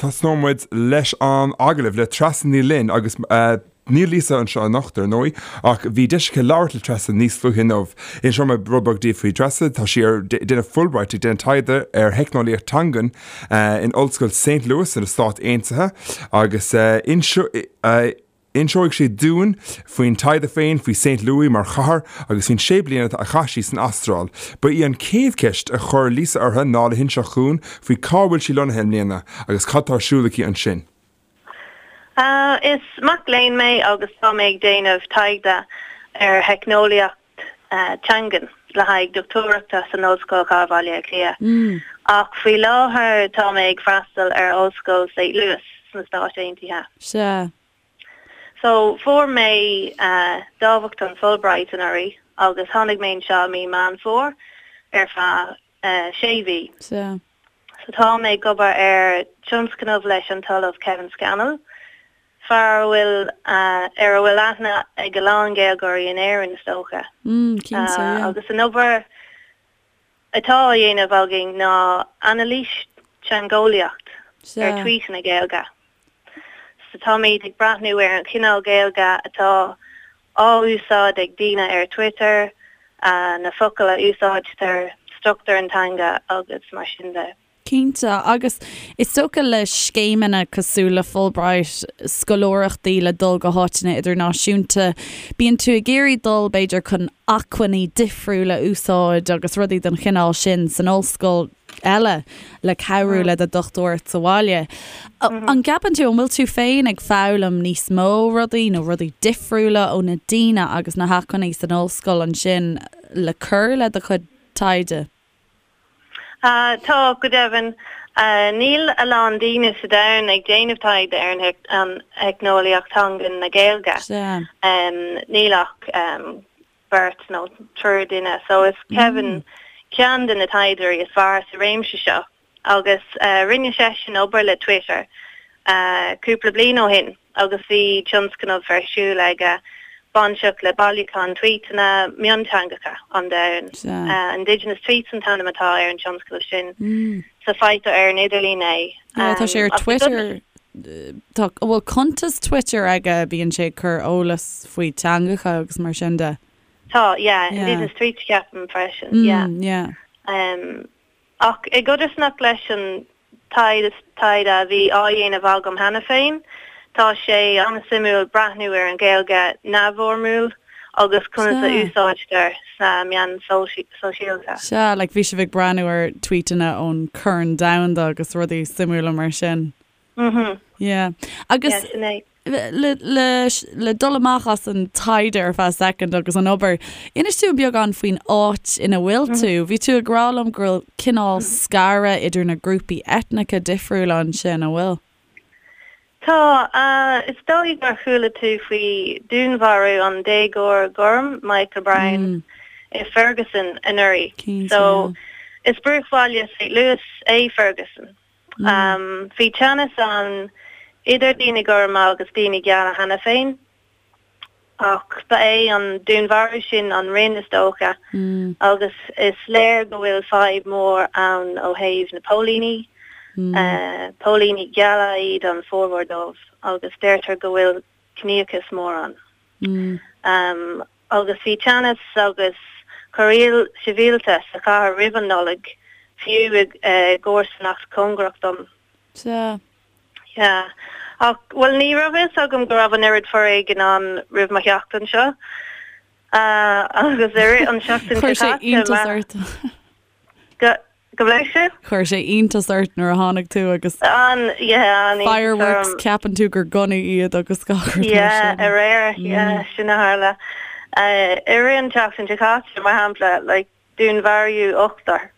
Tosnóidh muid leis an agallamh le Treasa Ní Fhloinn agus níl Lisa anseo anocht, ar ndóigh, ach bhí deis aici labhairt le Treasa níos luaithe inniu. Inseoidh mé rud beag daoibh faoi Treasa, tá sí ar déanamh Fulbright ag déanamh taighde ar theicneolaíocht teangan in Ollscoil St. Louis sna Stáit Aontaithe agus inseoidh Inseoidh sí dúinn faoin taighde féin, faoi Saint Louis mar chathair agus faoin sé bliana a chaith sí san Astráil. Ba í an chéad cheist a chuir Lisa uirthi ná le hinseacht dhúinn faoi cá bhfuil sí lonnaithe i mbliana agus cad tá ar siúl aici ansin. Is mac léinn mé agus tá mé ag déanamh taighde ar theicneolaíocht teangan le haghaidh dochtúireachta san Ollscoil Chathair Bhaile Átha Cliath. Ach faoi láthair tá mé ag freastal ar Ollscoil Saint Louis sna Stáit Aontaithe. Sea. So, fuair mé dámhachtain Fulbright anuraidh agus tháinig mé anseo i mí Meán Fómhair ar feadh sé mhí. Sea. So tá mé ag obair ar tionscnamh leis an tOllamh Kevin Scannell, fear a bhfuil, ar a bhfuil aithne ag a lán Gaeilgeoirí in Éirinn, is dócha. Mm, cinnte, yeah. Agus an obair atá á dhéanamh againn ná anailís teangeolaíocht ar tvuíteanna Gaeilge. So táimid ag breathnú ar an chineál Gaeilge atá á úsáid ag daoine ar Twitter, na focail a úsáidtear, struchtúr an teanga agus mar sin de. Cinnte, agus is dócha le scéimeanna cosúil le Fulbright, scoláireachtaí le dul go háiteanna idirnáisiúnta, bíonn tú ag iarraidh dul b'fhéidir chun acmhainní difriúla a úsáid agus rudaí den chineál sin san ollscoil eile le cabhrú le do dhochtúireacht sa bhaile. An gceapann tú, an bhfuil tú féin ag foghlaim níos mó rudaí nó rudaí difriúla ó na daoine agus na hacmhainní san ollscoil ansin le cur le do chuid taighde? Tá, go deimhin. Níl a lán daoine sa domhan ag déanamh taighde ar an theicneolaíocht teangan na Gaeilge. Níl ach beirt nó triúr duine. So is Kevin ceann de na taighdeoirí is fearr sa réimse seo agus rinne seisean obair le Twitter cúpla bliain ó shin. agus bhí tionscnamh ar siúl aige bainteach le bailiúchán tvuíteanna mionteangacha an domhain. Indigenous Tweets an t-ainm atá ar an tionscnamh sin. So faightear ar an idirlíon é. Yeah, tá sé ar Twitter. Tá, bhfuil cuntas Twitter aige, bíonn sé ag cur eolas faoi teangacha agus mar sin de. Tá, yeah, Indigenous Tweets ceapaim freisin, yeah. Yeah. Ach i gcodarsnacht leis an taighde a bhí á dhéanamh agam cheana féin, tá sé an-suimiúil breathnú ar an Ghaeilge neamhfhoirmiúil agus conas a úsáidtear sna meáin shóisialta. Sea, like bhí sibh ag breathnú ar tweetanna ón Corn Domhanda agus rudaí suimiúla mar sin. Mhm. Yeah. Agus Yeah, sin é. le, le, le dul amach as an taighde ar feadh soicind agus an obair, inis dúinn beagán faoin áit ina bhfuil tú. Bhí tú ag rá liom go bhfuil cineál scaradh idir na grúpaí eitneacha difriúla ansin, an bhfuil? Tá. Is dóigh gur chuala tú faoi dúnmharú an déagóir gorm, Michael Brown, i Ferguson anuraidh. Cinnte, So, is bruachbhaile St. Louis é Ferguson. Bhí teannas ann idir daoine gorma agus daoine geala cheana féin, ach ba é an dúnmharú sin an rinn is dócha, agus is léir go bhfuil fadhb mhór ann ó thaobh na póilíní. Póilíní geala iad an formhór dóibh, agus deirtear go bhfuil ciníochas mór ann. Agus bhí teannas agus corraíl sibhialta sa chathair roimh an Nollaig, fiú i gcomharsanacht cóngarach dom. Sea. Yeah. Ach, bhuel, ní raibh fhios agam go raibh an oiread foréigin ann roimh mo theacht anseo. Agus i rith an seachtain seo caite. Chuir sé iontas ort. Go, gabh mo leithscéal? Chuir sé iontas ort nuair a tháinig tú agus. An, yeah, an iontas orm. Fireworks, ceapann tú gur gunnaí iad agus gach rud mar sin. Yeah, aréir, yeah, sin a tharla. I rith an tseachtain seo caite, mar shampla, like, dúnmharaíodh ochtar.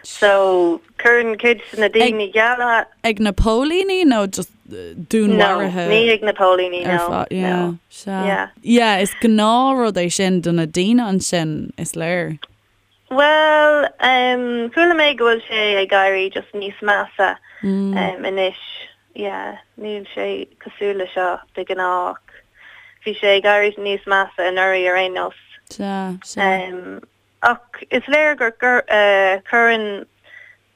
So, cuireann cuid de na daoine geala. Ag na póilíní nó just dúnmharuithe? No, ní ag na póilíní, no, no. Yeah, sea. Yeah. Yeah, is gnáthrud é sin do na daoine ansin, is léir. Bhuel, chuala mé go bhfuil sé ag éirí just níos measa anois. Yeah, níl sé cosúil le seo de ghnáth ach bhí sé ag éirí níos measa anuraidh ar aon nós. Sea, sea. Ach is léir gur cuireann.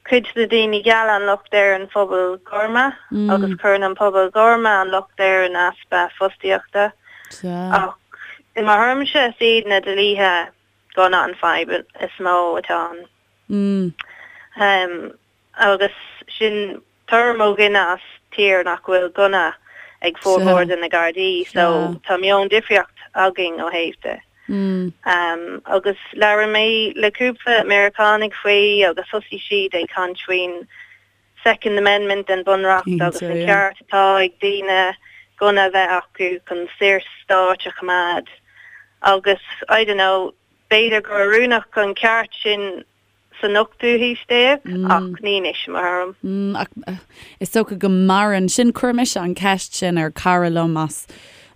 cuid de na daoine geala an locht ar an phobal gorma agus cuireann an pobal gorma an locht ar an easpa fostaíochta. Ach i mo thuairimse is iad na dlíthe gunna an fadhb is mó atá ann. Agus sin tuairim ó dhuine as tír nach bhfuil gunna ag formhór de na Gardaí so tá meon difríocht againn ó thaobh de. Agus labhair mé le cúpla Meiriceánaigh faoi agus thosaigh siad ag caint faoin Second Amendment den Bunreacht agus an ceart atá ag daoine gunna a bheith acu chun saorstáit a choimeád agus I don't know, b'fhéidir gur oiriúnach an ceart sin san ochtú haois déag ach ní anois, i mo thuairim. Ach is dócha go maireann sin. Chuir mise an ceist sin ar cara liom as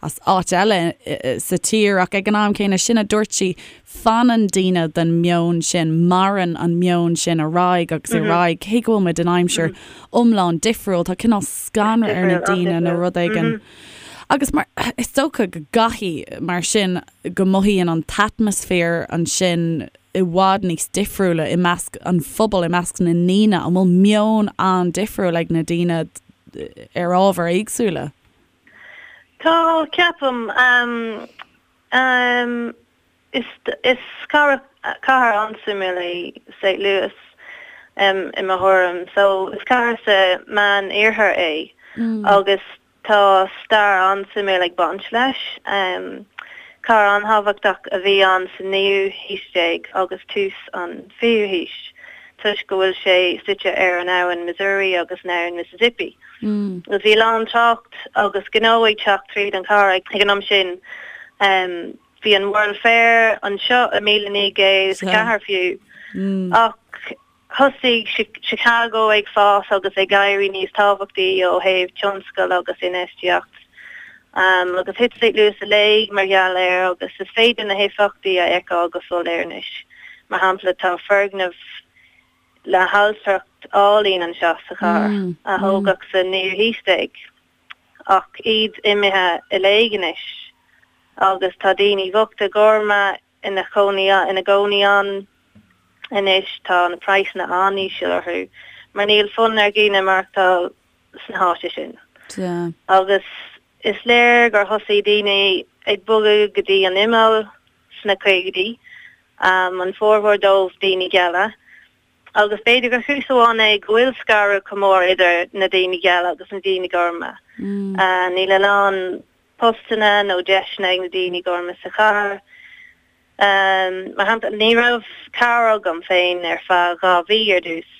as áit eile sa tír ach ag an am céanna sin a dúirt sí, fanann daoine den meon sin, maireann an meon sin ar aghaidh agus ar aghaidh cé go bhfuil muid in aimsir iomlán difriúil, tá cineál scanradh ar na daoine nó rud éigin. Agus mar, is dócha go gcaithfidh mar sin go mothaíonn an t-atmaisféar ansin i bhfad níos difriúla i measc an phobail, i measc na ndaoine? An bhfuil meon an-difriúil ag na daoine ar ábhair éagsúla? Tá, ceapaim. Is cathair an-suimiúil é St. Louis i mo thuairim. So, is cathair sa Meán-Iarthar é agus Tá stair an-suimiúil ag baint leis. Cathair an-thábhachtach a bhí ann sa naoú haois déag agus tús an fichiú haois toisc go bhfuil sé suite ar an abhainn Missouri agus an abhainn Mississippi. Agus bhí a lán trácht agus gnó ag teacht tríd an chathair ag an am sin. Bhí an World Fair anseo i 1904 fiú. Ach Thosaigh Chicago ag fás agus ag éirí níos tábhachtaí ó thaobh tionscail agus infheistíocht, agus thit St. Louis i léig mar gheall air agus is féidir na héifeachtaí a fheiceáil go soiléir anois. Mar shampla, tá foirgneamh le hailtireacht álainn anseo sa chathair, a thógadh sa naoú haois déag, ach iad imithe i léig anois agus tá daoine bochta gorma ina chónaí ina gcónaí ann anois. Tá na praghsanna an-íseal orthu mar níl fonn ar dhaoine maireachtáil sna háite sin. Agus is léir gur thosaigh daoine ag bogadh go dtí an imeall sna caogaidí, an formhór dóibh daoine geala. Agus b'fhéidir gur chúis amháin é go bhfuil scaradh chomh mór idir na daoine geala agus na daoine gorma. Níl a lán postanna nó deiseanna ag na daoine gorma sa chathair. Mar shampla, ní raibh carr agam féin ar feadh 2 mhí ar dtús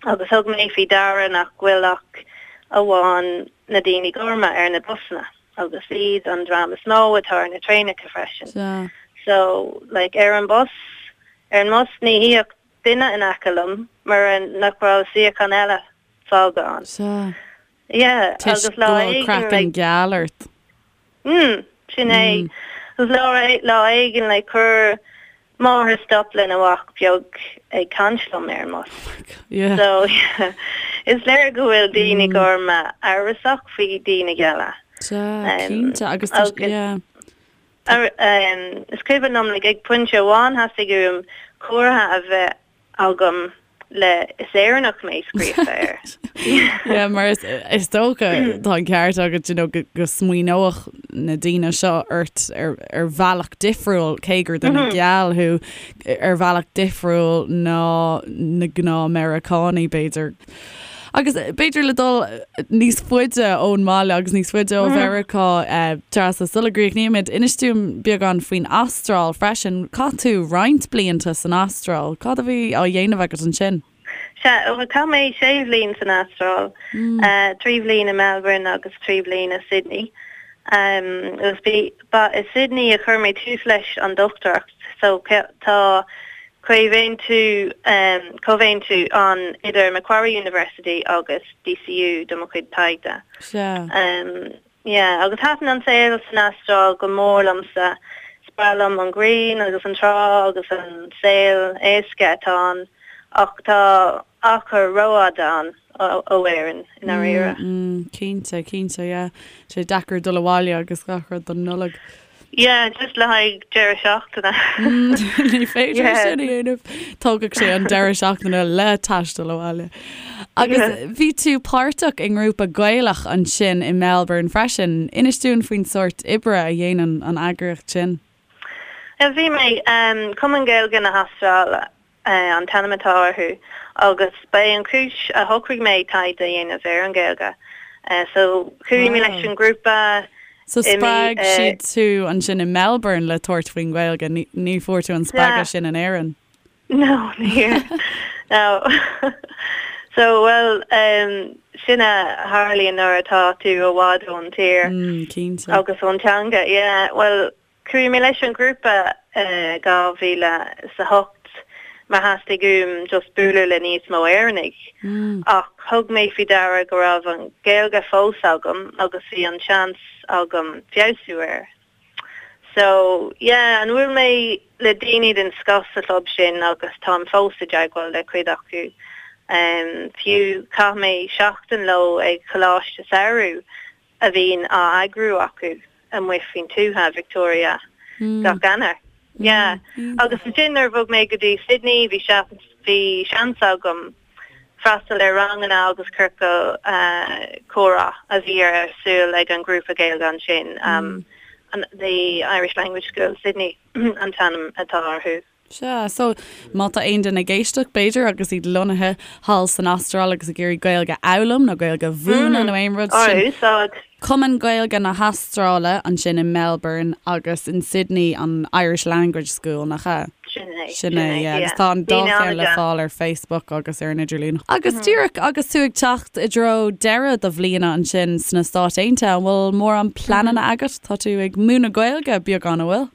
agus thug mé faoi deara nach bhfuil ach amháin na daoine gorma ar na busanna agus iad an dream is mó atá ar na traenacha freisin. So, like, ar an bus, ar an mbus ní shuífeadh duine in aice liom mura nach raibh suíochán eile fágtha ann. Yeah, agus lá éigin like. Craiceann geal ort. Mm, sin é. Agus lá, lá éigin like chuir máthair stop lena mhac beag ag caint liom ar an mbus. Oh my God, yeah. So, yeah, is léir go bhfuil daoine gorma amhrasach faoi daoine geala. Sea, cinnte, agus tá, yeah. Is cuimhin liom like ag pointe amháin theastaigh uaim comhartha a bheith agam le 'Is Éireannach mé' scríofa air. Yeah, mar is, is dócha, tá an ceart agat, you know, go, go smaoineodh na daoine seo ort ar, ar bhealach difriúil, cé gur duine geal thú, ar bhealach difriúil ná na gnáth-Meiriceánaigh, b'fhéidir. Agus b'fhéidir le dul níos faide ón mbaile agus níos faide ó Mheiriceá, Treasa, sula gcríochnaímid, inis dúinn beagán faoin Astráil freisin. Chaith tú roinnt blianta san Astráil. Cad a bhí á dhéanamh agat ansin? Sea, chaith mé sé bhliain san Astráil, 3 bhliain i Melbourne agus 3 bhliain i Sydney. Agus ba i Sydney a chuir mé tús leis an dochtúireacht, so tá Comhaontú Comhaontú ann idir Macquarie University agus DCU do mo chuid taighde. Sea. Yeah, agus thaitin an saol san Astráil go mór liomsa. Is breá liom an ghrian agus an trá agus an saol éasca atá ann, ach tá achar rófhada ann ó Éirinn, i ndáiríre. Mm, cinnte, cinnte, yeah. Sé deacair dul abhaile agus gach rud don Nollaig. Yeah, just le haghaidh deireadh seachtaine. Ní féidir sin a dhéanamh. Tógfaidh sé an deireadh seachtaine le taisteal abhaile. Agus bhí tú páirteach i ngrúpa Gaelach ansin i Melbourne freisin. Inis dúinn faoin sórt oibre a dhéanann an eagraíocht sin. Bhí mé, Cumann Gaeilge na hAstráile an t-ainm atá orthu agus ba é an chúis a shocraigh mé taighde a dhéanamh ar an Ghaeilge. So chuaigh mé leis an ngrúpa So spreag siad tú ansin i Melbourne le tabhairt faoin Ghaeilge, ní fuair tú an spreagadh sin in Éirinn? No, níor. No. So, well, sin a tharlaíonn nuair atá tú i bhfad ón tír. Cinnte. Agus ón teanga, yeah. Well, Chuaigh mé leis an ghrúpa i 2008 mar theastaigh uaim just bualadh le níos mó Éireannaigh ach thug mé faoi deara go raibh an Ghaeilge fós agam agus bhí an seans agam feabhsú air. So yeah, and bhuail mé le daoine den scoth sa chlub sin agus táim fós i dteagmháil le cuid acu. Fiú chaith mé seachtain leo ag coláiste samhraidh a bhíonn á eagrú acu amuigh faoin tuath, Victoria, gach Eanáir. Yeah. Agus ansin nuair a bhog mé go dtí Sydney bhí bhí seans agam freastal ar ranganna agus ciorcal comhrá a bhí ar siúl ag an ghrúpa Gaeilge ansin, the Irish Language School Sydney an t-ainm atá orthu. Sea, so má tá aon duine ag éisteacht, b'fhéidir, agus iad lonnaithe thall san Astráil agus ag iarraidh Gaeilge a fhoghlaim nó Gaeilge a mhúineadh nó aon rud sin, úsáid. Cumann Gaeilge na hAstráile ansin i Melbourne agus in Sydney an Irish Language School, nach ea? Sin é, Sin é, yeah. Agus tá an dá cheann le fáil ar Facebook agus ar an idirlíon. Agus díreach agus tú ag teacht i dtreo deireadh do bhliana ansin sna Stáit Aontaithe, an bhfuil mórán pleananna agat? Tá tú ag múineadh Gaeilge beagán, an bhfuil?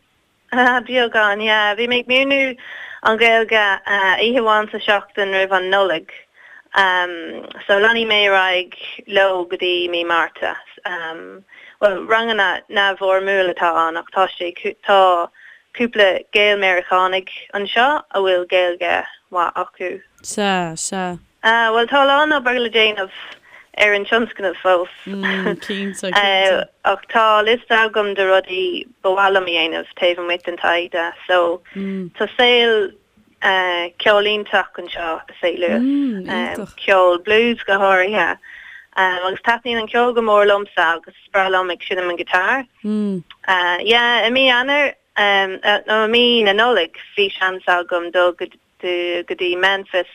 Beagán, yeah. Bhí mé ag múineadh an Ghaeilge oíche amháin sa seachtain roimh an Nollaig. So leanfaidh mé ar aghaidh leo go dtí mí Márta. Bhuel, ranganna neamhfhoirmiúil atá ann ach tá sé, tá cúpla Gael-Meiriceánaigh anseo a bhfuil Gaeilge mhaith acu. Sea, sea. Ah, bhuel, tá a lán obair le déanamh ar an tionscnamh fós. Cinnte, cinnte. Ach tá liosta agam de rudaí ba mhaith liom a dhéanamh taobh amuigh den taighde. So, tá saol ceoil iontach anseo i St. Louis. Ceol blues go háirithe. Agus taitníonn an ceol go mór liomsa agus is breá liom ag seinm an guitar. Yeah, i mí Eanáir, nó i mí na Nollag, bhí seans agam dul go go dtí Memphis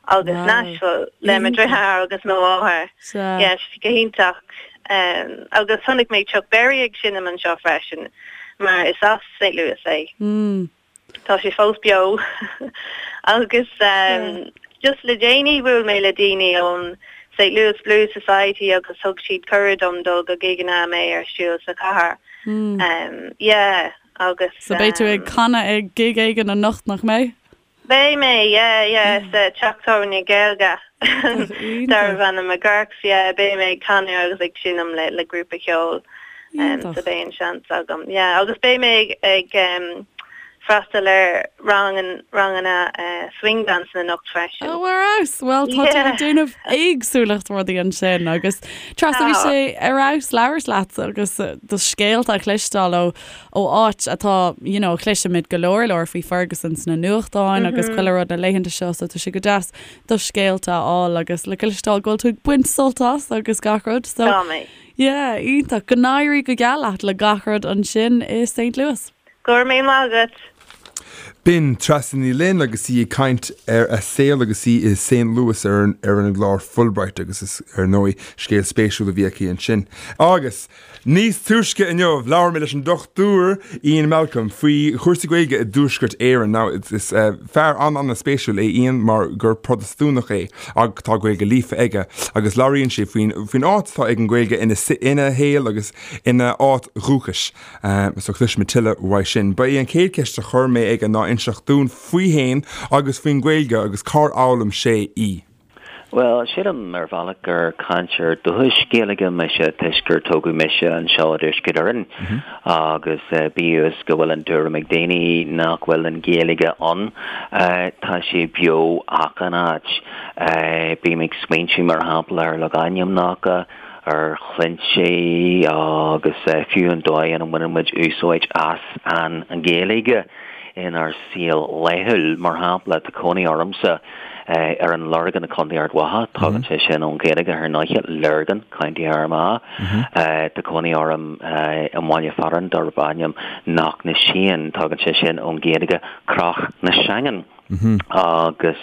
agus Nashville le mo dheartháir agus mo mháthair. Yeah, go hiontach. Agus chonaic mé Chuck Berry ag seinm anseo freisin, mar is as St. Louis é. Tá sé fós beo. Agus just le déanaí bhuail mé le daoine ón St. Louis Blues Society agus thug siad cuireadh dom dul go gigeanna a mbeidh ar siúl sa chathair. Yeah. Agus. So beidh tú ag canadh ag gig éigin anocht, nach mbeidh? Beidh mé, yeah, yeah, sa teach tábhairne Gaeilge darbh ainm McGurk's, yeah, beidh mé ag canadh agus ag seinm le le grúpa ceoil, so beidh an seans agam, yeah, agus beidh mé ag ag freastal ar rang ranganna swing dancing anocht freisin. Oh, ar fheabhas! Bhuel, tá tú ag déanamh éagsúlacht rudaí ansin agus Treasa, bhí sé ar fheabhas labhairt leat agus do scéalta a chloisteáil ó ó áit atá, you know, cloisimid go leor leor faoi Ferguson sna nuachtáin agus chuile rud na laethanta seo so tá sé go deas do scéalta a fháil agus le cloisteáil go bhfuil tú ag baint sult as agus gach rud so Tá mé. yeah, iontach. Go n-éirí go geal leat le gach rud ansin i St. Louis. Go raibh míle maith agat. B'in Treasa Ní Fhloinn agus í ag caint ar a saol agus í i St. Louis ar an ar an gclár Fulbright agus is ar ndóigh scéal spéisiúil a bhí aici ansin. Agus Níos túisce inniu, labhair mé leis an Dr Ian Malcolm faoi chúrsaí Gaeilge i dTuaisceart Éireann. Now, is fear an-an-spéisiúil é Ian mar gur Protastúnach é ach tá Gaeilge líofa aige agus labhraíonn sé faoin faoin áit atá ag an Ghaeilge ina ina shaol agus ina áit dhúchais. So cloisfimid tuilleadh uaidh sin. Ba í an chéad cheist a chuir mé aige ná inseacht dúinn faoi fhéin agus faoin Ghaeilge agus cár fhoghlaim sé í. Bhuel, sílim ar bhealach gur cainteoir dúchais Gaeilge mise toisc gur tógadh mise anseo i dTuaisceart Éireann agus bíodh is go bhfuil an tuairim ag daoine nach bhfuil an Ghaeilge ann, tá sé beo achan áit. Bím ag smaointiú mar shampla ar logainmneacha. Ar shloinnte agus fiú an dóigh ina mbaineann muid úsáid as an Ghaeilge inár saol laethúil. Mar shampla, tá cónaí ormsa ar an Lorgain i Contae Ard Mhacha, tagann sé sin ón Ghaeilge ar ndóighe, Lurgan, County Armagh. Tá cónaí orm i mbaile fearainn darb ainm Knocknasheen, tagann sé sin ón Ghaeilge Cnoc na Seangan. Agus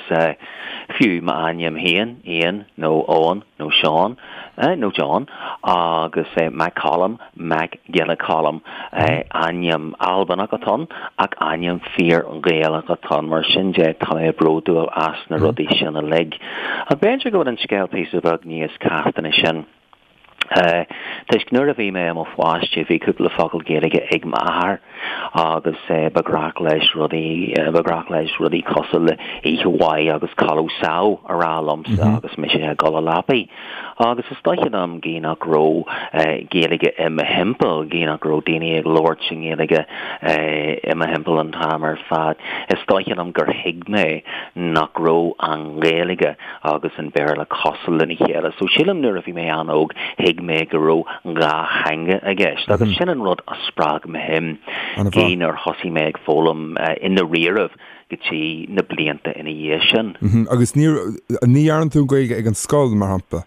fiú m'ainm féin, Ian nó Eoin nó Seán nó John, agus Mac Coluim, Mac Giolla Choluim, ainm Albanach atá ann ach ainm fíor-Ghaelach atá ann. Mar sin de, tá mé bródúil as na rudaí sin uilig. Ach b'fhéidir go bhfuil an scéal píosa beag níos casta ná sin. Toisc nuair a bhí mé i mo pháiste bhí cúpla focal Gaeilge ag m'athair agus ba ghnách leis rudaí, ba ghnách leis rudaí cosúil le oíche mhaith agus codladh sámh a rá liomsa agus mise ag dul a leapaidh. Agus is dóiche liom gidh nach raibh Gaeilge i mo thimpeall, gidh nach raibh daoine ag labhairt i nGaeilge i mo thimpeall an t-am ar fad, is dóiche liom gur thuig mé nach raibh an Ghaeilge agus an Béarla cosúil lena chéile. So sílim nuair a bhí mé an-óg thuig mé go raibh dhá theanga i gceist agus sin an rud a spreag mo shuim gidh nár thosaigh mé ag foghlaim i ndáiríribh go dtí na blianta ina dhiaidh sin. Agus ní ní dhearna tú an Ghaeilge ag an scoil, mar shampla?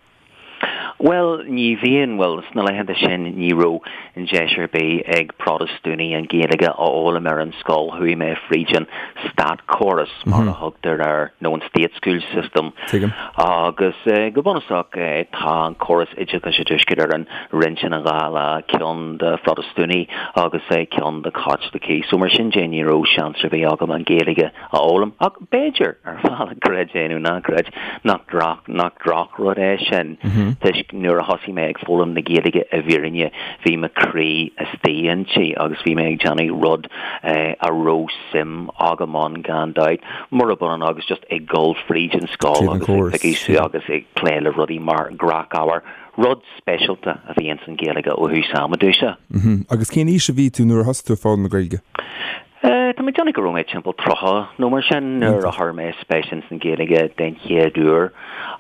Bhuel, ní bhíonn, bhuel, sna laethanta sin ní raibh an deis ar bith ag Protastúnaigh an Ghaeilge a fhoghlaim ar an scoil. Chuaigh mé fríd an státchóras, mar a thugtar air, nó an state school system. Tuigim. Agus go bunúsach tá an córas oideachais i dTuaisceart Éireann roinnte ina dhá leath, ceann do Phrotastúnaigh agus ceann do Chaitlicigh. So mar sin de ní raibh seans ar bith agam an Ghaeilge a fhoghlaim. Ach b'fhéidir, ar bhealach, creid é nó ná creid, nach droch, nach drochrud é sin, toisc nuair a thosaigh mé ag foghlaim na Gaeilge i bhfírinne, bhí mo chroí istigh inti agus bhí mé ag déanamh rud a raibh suim agam ann gan dabht, murab ionann agus just ag dul fríd an scoil agus ag piocadh suas agus ag plé le rudaí mar ghnáthábhar, rud speisialta a bhí ins an Ghaeilge ó thús ama domhsa. Agus cén aois a bhí tú nuair a thosaigh tú ag foghlaim na Gaeilge? Tá mé ag déanamh go raibh mé timpeall 30 nó mar sin nuair a chuir mé spéis ins an Ghaeilge den chéad uair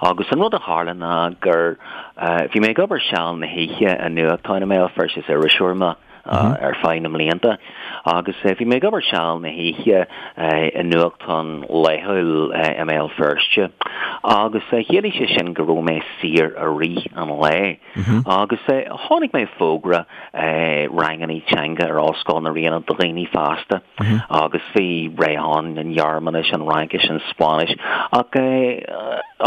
agus an rud a tharla ná gur bhí mé ag obair seal na hoíche i nuachtán i mBéal Feirste, is iriseoir mé ar feadh na mblianta agus bhí mé ag obair seal na hoíche i nuachtán laethúil i mBéal Feirste agus chiallaigh sé sin go raibh mé saor i rith an lae. Agus chonaic mé fógra rangannaí teanga ar Ollscoil na Ríona do dhaoine fásta agus bhí rogha ann, an Ghearmáinis, an Fhraincis, an Spáinnis ach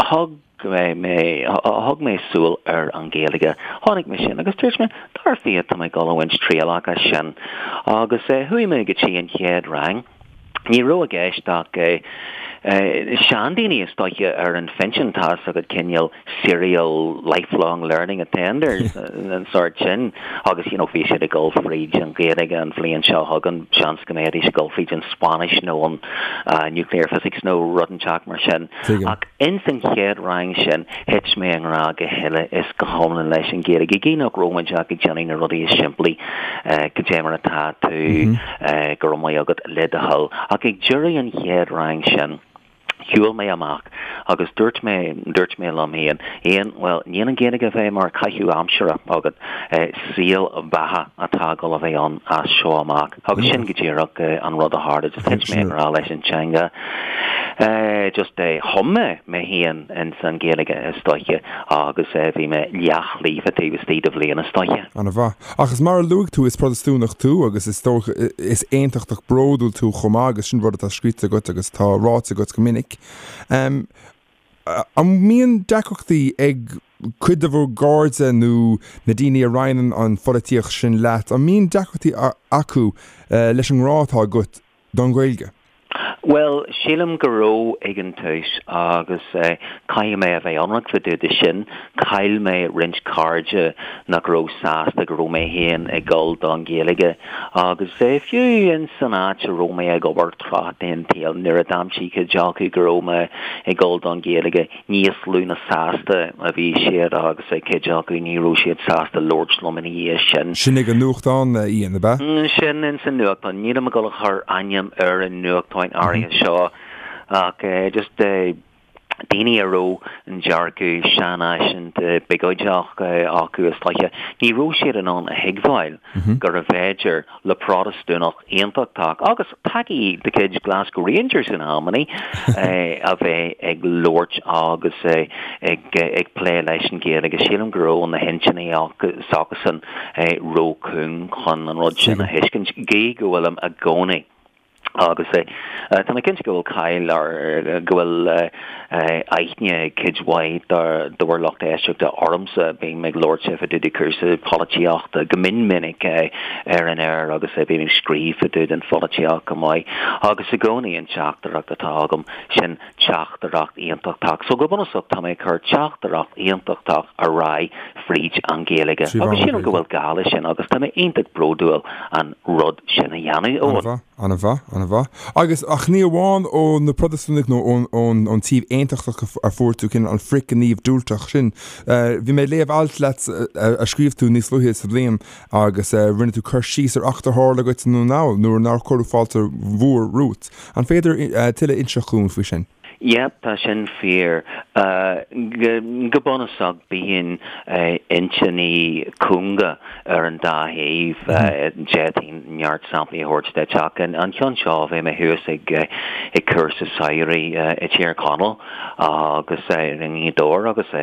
thug mé thug mé súil ar an Ghaeilge. Chonaic mé sin agus dúirt mé, dar fia tá mé ag dul a bhaint trialach as sin. Agus chuaigh mé go dtí an chéad rang. Ní raibh i gceist ach seandaoine is dóiche ar an phinsean, tá fhios agat cineál serial lifelong learning attenders, an sórt sin agus you know bhí siad ag dul fríd an Ghaeilge an bhliain seo chugainn, seans go mbeidís ag dul fríd an Spáinnis nó an nuclear physics nó rud inteacht mar sin. Ach ins an chéad rang sin thit mé i ngrá go huile is go hiomlán leis an Ghaeilge, gidh nach raibh muid ach ag déanamh na rudaí is simplí, cad é mar atá tú, go raibh maith agat, le do thoil. Ach ag deireadh an chéad rang sin, shiúil mé amach agus dúirt mé, dúirt mé liom féin, Ian, bhuel, níl an Ghaeilge a bheith mar caitheamh aimsire agat, saol beatha atá ag dul a bheith ann as seo amach. Agus sin go díreach an rud a tharla, just thit mé i ngrá leis an teanga. Just chum mé mé féin ins an Ghaeilge is dóiche agus bhí mé leathlíofa taobh istigh de bhliain is dóiche. An-mhaith. Ach is mar a luaigh tú, is Protastúnach tú agus is dócha, is aontachtach bródúil tú chomh maith agus sin rud atá scríte agat agus atá ráite agat go minic. An mbíonn deacrachtaí ag cuid de bhur gcairde nó na daoine a roinneann an pholaitíocht sin leat, an mbíonn deacrachtaí acu leis an ngrá atá agat don Ghaeilge? Bhuel, sílim go raibh ag an tús agus caithfidh mé a bheith ionraic fá dtaobh de sin, chaill mé roinnt cairde nach raibh sásta go raibh mé féin ag dul don Ghaeilge agus fiú in san áit a raibh mé ag obair tráth den tsaol nuair a d'aimsigh cuid acu go raibh mé ag dul don Ghaeilge, níos lú ná sásta a bhí siad agus cuid acu ní raibh siad sásta labhairt liom ina dhiaidh sin. Sin ag an nuachtán, Ian, ab ea? Sin ins an nuachtán. Nílim ag dul a chur ainm ar an nuachtán áirithe seo ach just. Daoine a raibh an dearcadh seanfhaiseanta biogóideach acu is dóiche, ní raibh siad in ann a thuigbheáil gurbh fhéidir le Protastúnach aontachtach, agus tacaí de chuid Glasgow Rangers in amannaí, a bheith ag labhairt agus ag plé leis an Ghaeilge. Sílim go raibh na hintinní s'acusan ró-chúng chun an rud sin a thuiscint, gídh go bhfuilim i gcónaí. Agus tá mé cinnte go bhfuil cáil ar, go bhfuil aithne ag cuid mhaith de bhur lucht éisteachta ormsa. Bím ag labhairt fá dtaobh de chúrsaí polaitíochta go mion minic ar an aer agus bím ag scríobh fá dtaobh den pholaitíocht go maith. Agus i gcónaí an teachtaireacht atá agam, sin teachtaireacht aontachtach. So go bunúsach tá mé ag cur teachtaireacht aontachtach ar aghaidh fríd an Ghaeilge. Agus sílim go bhfuil gá leis sin agus tá mé iontach bródúil an rud sin a dhéanamh, Eoin. Ana mhaith, ana mhaith. Agus, ach ní amháin ó na Protastúnaigh nó ón, ón, ón taobh aontachtach a fuair tú cineál an frithghníomh diúltach sin. Bhí mé ag léamh alt leat a scríobh tú níos luaithe sa bhliain agus rinne tú cur síos ar eachtra a tharla dhuit i nDún na nGall nuair nár cuireadh fáilte mhór romhat. An féidir tuilleadh a inseacht dhúinn faoi sin? Yep, tá sin fíor. Go bunúsach bíonn intinní cúnga ar an dá thaobh. D'fhéadfainn neart samplaí a thabhairt duit ach an ceann seo, bhí mé thuas ag cúrsa samhraidh i dTír Chonaill agus i nGaoth Dobhair agus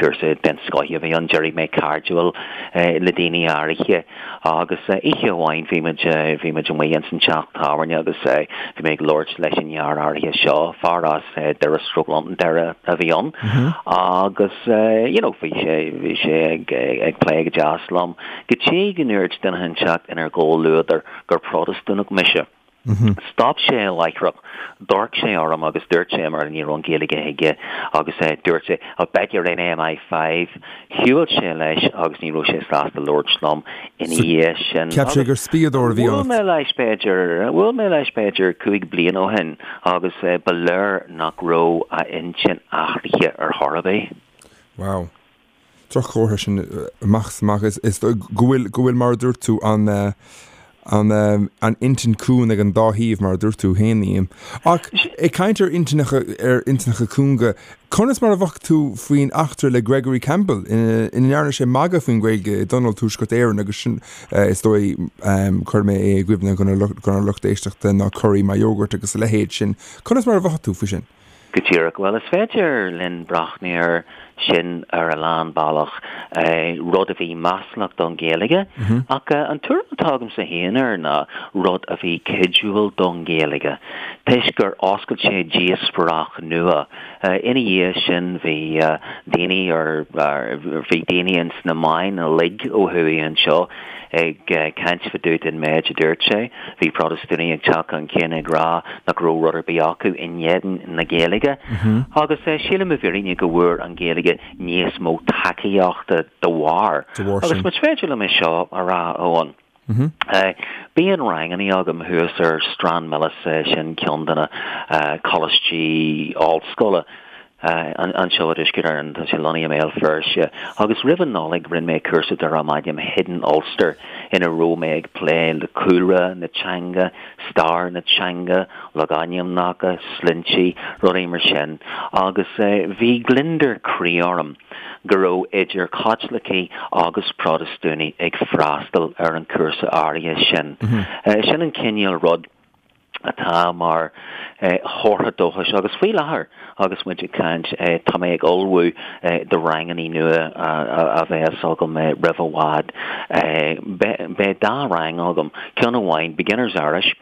cúrsa den scoth a bhí ann. D'éirigh mé cairdiúil le daoine áirithe. Agus oíche amháin bhí muid, bhí muid amuigh ins an teach tábhairne agus bhí mé ag labhairt leis an fhear áirithe seo, fear as Doire stroke Londonderry a bhí ann agus you know bhí sé, bhí sé ag, ag plé go deas liom go dtí go ndúirt duine inteacht inár gcomhluadar gur Protastúnach mise. Stop sé láithreach, d'amharc sé orm agus dúirt sé, mar ní raibh an Ghaeilge aige, agus dúirt sé, I'll bet you're in MI5. Shiúil sé leis agus ní raibh sé sásta labhairt liom ina dhiaidh sin. Cheap sé gur spiadóir a bhí ionat. Bhuail mé leis b'fhéidir, bhuail mé leis b'fhéidir 5 bliana ó shin agus ba léir nach raibh a intinn athraithe ar chor ar bith. Wow. Droch-chomhartha sin amach is amach is go bhfuil, go bhfuil mar a dúirt tú, an, an, an intinn cúng ag an dá thaobh mar a dúirt tú féin, Liam. Ach ag caint ar intinneacha, ar intinneacha cúnga, conas mar a mhothaigh tú faoin eachtra le Gregory Campbell ina ndearna sé magadh faoin Ghaeilge i dTionól Tuaisceart Éireann agus sin, is dóigh, cuirfidh mé é i gcuimhne don lucht éisteachta ná curry my yogurt agus a leithéid sin. Conas mar a mhothaigh tú faoi sin? Go díreach. Bhuel, is féidir linn breathnú air sin ar a lán bealach, rud a bhí maslach don Ghaeilge, ach an tuairim atá agamsa féin air ná rud a bhí cuidiúil don Ghaeilge, toisc gur oscail sé díospóireacht nua. Ina dhiaidh sin bhí daoine ar, bhí daoine ins na meáin uilig ó thuaidh anseo, Ag caint fá dtaobh den méid a dúirt sé, bhí Protastúnaigh ag teacht chun cinn ag rá nach raibh rud ar bith acu in éadan na Gaeilge. Agus sílim i bhfírinne go bhfuair an Ghaeilge níos mó tacaíochta dá bharr. Agus más féidir liom é seo a rá, Eoin. Bíonn rangannaí agam thuas ar Stranmillis, sin ceann de na coláistí ollscoile. Anseo i dTuaisceart Éireann, tá sé lonnaithe i mBéal Feirste, agus roimh an Nollaig rinne mé cúrsa darbh ainm Hidden Ulster ina raibh mé ag plé le cúlra na teanga, stair na teanga, logainmneacha, sloinnte, rudaí mar sin, agus bhí gliondar croí orm go raibh idir Chaitlicigh agus Protastúnaigh ag freastal ar an chúrsa áirithe sin. Sin an cineál rud. atá mar chomhartha dóchais agus faoi láthair agus muid ag caint tá mé ag ullmhú do rangannaí nua a bheas agam roimh i bhfad. Beidh dá rang agam, ceann amháin Beginner's Irish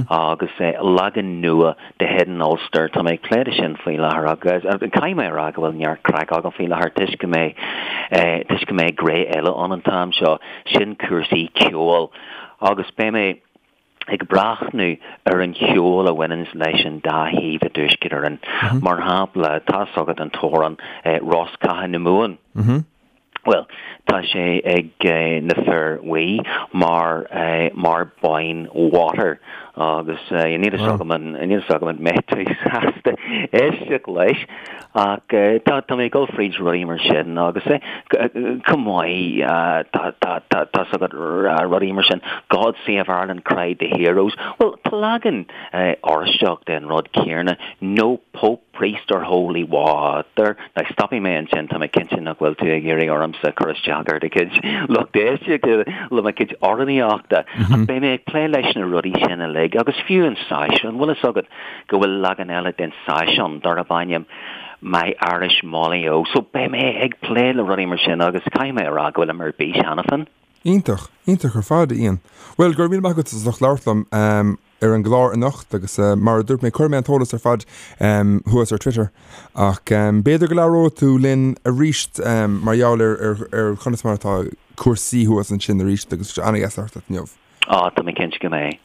agus leagan nua de Hidden Ulster. Tá mé ag plé le sin faoi láthair agus caithfidh mé a rá go bhfuil neart craic agam faoi láthair toisc go mbeidh toisc go mbeidh gré eile ann an t-am seo, sin cúrsaí ceoil agus beidh mé ag breathnú ar an cheol a bhaineanns leis an dá thaobh i dTuaisceart Éireann. Mar shampla, tá's agat an t-amhrán Rosc Catha na Mumhan. Bhuel, Tá sé ag na fir bhuí mar mar boyne water agus níl fhios agam an níl fhios agam an mbeidh tú sásta éisteacht leis ach tá tá mé ag dul fríd rudaí mar sin agus chomh maith tá tá tá tá 's agat rudaí mar sin God Save Ireland cried the heroes. Bhuel tá leagan Oráisteach den rud céanna no Pope Priest or holy water. Now stopfaidh mé ansin, tá mé cinnte nach bhfuil tú ag iarraidh ormsa cur isteach ar do chuid lucht éisteachta le mo chuid amhránaíochta, ach beidh mé ag plé leis na rudaí sin uilig, agus fiú an seisiún, bhfuil fhios agat go bhfuil leagan eile den seisiún darb ainm My Irish Molly O, so beidh mé ag plé le rudaí mar sin agus caithfidh mé a rá go bhfuilim ar bís cheana féin. Iontach, iontach ar fad, a Ian. Bhuel, go raibh míle maith agat as ucht labhairt liom ar an gclár anocht agus mar a dúirt mé, cuirfidh mé an t-eolas ar fad thuas ar Twitter ach b'fhéidir go labhróidh tú linn arís mar gheall ar ar conas mar atá cúrsaí thuas ansin arís agus ana-dheas labhairt leat inniu. Á, tá mé cinnte go mbeidh.